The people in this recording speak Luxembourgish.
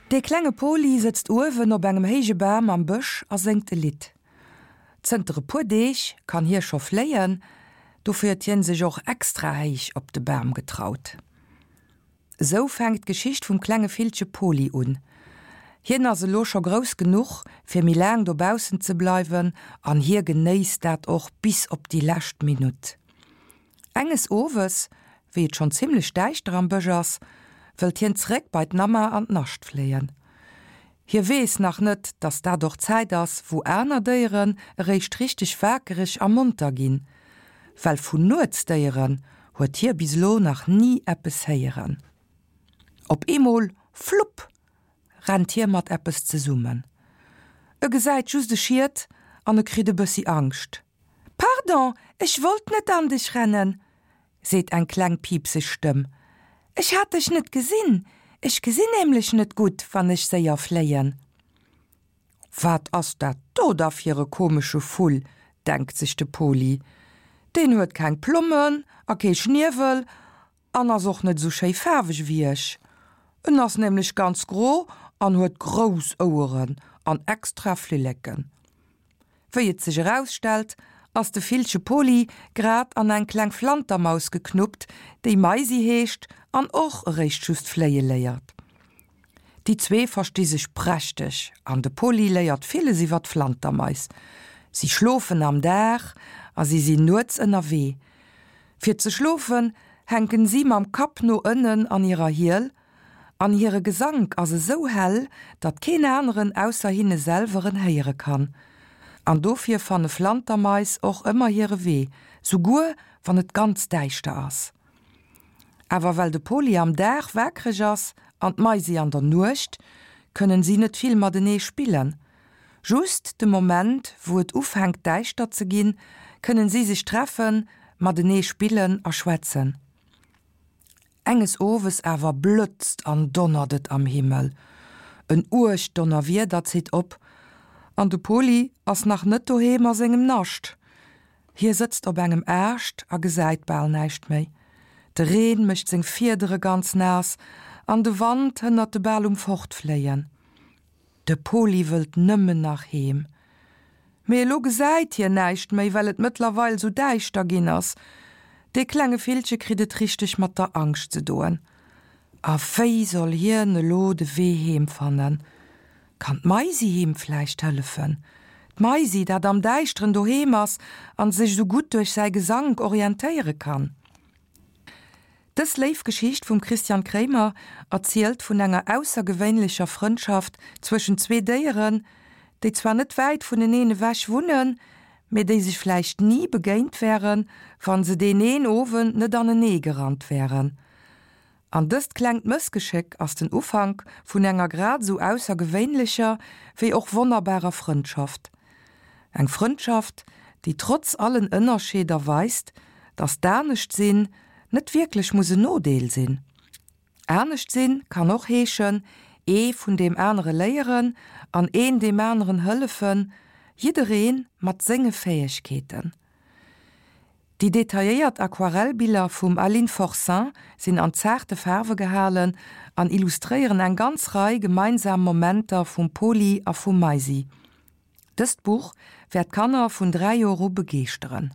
Dee klenge Poli sëtzt uewen op engem héije Bam am Bësch a séngt e Lidd. Zënter e puer Deeg kann hie scho fléien, dofir huet hien sech och extra héich op de Bam getraut. Esou fänkt d'Geschicht vum klenge Villche Poli un. Hien ass elo scho grouss genuch, fir méi laang dobaussen ze bleiwen an hie genéisst dat och bis op déi lescht Minutt. Enges Owes, wéi et schonn zimmlech däischter am Bësch ass, wëllt hien zeréck bei d'Namma an d'Nascht fléien. Hie weess nach net, dass dat och d'Zäit ass, wou aner Déieren eréischt richteg wakereg a monter ginn, well vun Nuetsdéieren huet hie bis elo nach ni eppes héieren. Op eemol, flupp! rennt hie mat eppes zesummen. E gesäit just e Schiet an e kritt e bëssi Angscht. Pardon, ech wollt net an dech rennen, seet eng kleng piipseg Stëmm. Ech hat dech net gesinn. Ech gesinn nämlech net gutt, wann ech séier fléien. Wat ass dat do da fir e komesche Vull, denkt sech de Poli. Deen huet keng Plommen a kee Schniewel an ass och net esou schéi faarweg ewéi ech. En ass nämlech ganz gro an huet grouss Oueren an extra Flilleken. Wéi et sech erausstellt, ass de Villche Poli grad an eng kleng Flantermaus geknuppt, déi Maisi heescht an och eréischt just fléie léiert. Déi zwee versti sech prächteg an de Poli léiert villes iwwer d'Flantermais. Si schlofen am Dag a si sinn nuets ënnerwee. Fir ze schlofen, hänken si mam Kapp no ënnen an hirer Hiel, an hire Gesank ass esou hell, datt keen aneren ausser hinne selwer en héiere kann. An dofir fanne Flantermais och ëmmer hire Wee, souguer wann et ganz däischter ass. Awer well de Poli am Dag waakreg ass an d'Maisi an der Nuecht, kënnen si net vill matenee spillen. Just de Moment, wou et ufänkt däischter ze ginn, kënnen si sech treffen, matenee spillen a schwätzen. Enges Owes awer blëtzt an donnert et am Himmel. En uergt Donnerwieder zitt op an de Poli ass nach net doheem a sengem Nascht. Hie sëtzt op engem Aascht a gesäit bal näischt méi. De Reen mécht seng Fiedere ganz naass an de Wand hënnert e bal um Fortfléien. De Poli wëllt nëmmen nach heem. Mee elo gesäit hien näischt méi, well et mëttlerweil sou däischter ginn ass. Dee klenge Villche kritt et richteg mat der Angscht ze doen. A wéi soll hien elo de Wee heem fannen? Kann d'Maisi him vläicht hëllefen? D'Maisi, dat am Däischteren doheem ass an sech sou gutt duerch säi Gesank orientéiere kann? Dës léif Geschicht vum Christian Kraemer erzielt vun enger aussergewéinlecher Frëndschaft zwëschen zwee Déieren, déi zwar net wäit vuneneen ewech wunnen, mee déi sech vläicht ni begéint wären, wann se deen een Owend net anenee gerannt wären. An dëst klengt Mëssgeschéck ass den Ufank vun enger grad esou aussergewéinlecher wéi och wonnerbarer Frëndschaft. Eng Frëndschaft, déi trotz allen Ënnerscheeder weist, dass d'Anescht-Sinn net wierklech muss en Nodeel sinn. Anescht-Sinn kann och heeschen, ee vun deem anere léieren an een deem aneren hëllefen, jidderee mat senge Fäegkeeten. Déi detailléiert Aquarellbiller vum Aline Forcin sinn an zaarte Faarwe gehalen an illustréieren eng ganz Rei gemeinsam Momenter vum Poli a vum Maisi. Dëst Buch wäert Kanner vun 3 Joer u begeeschteren.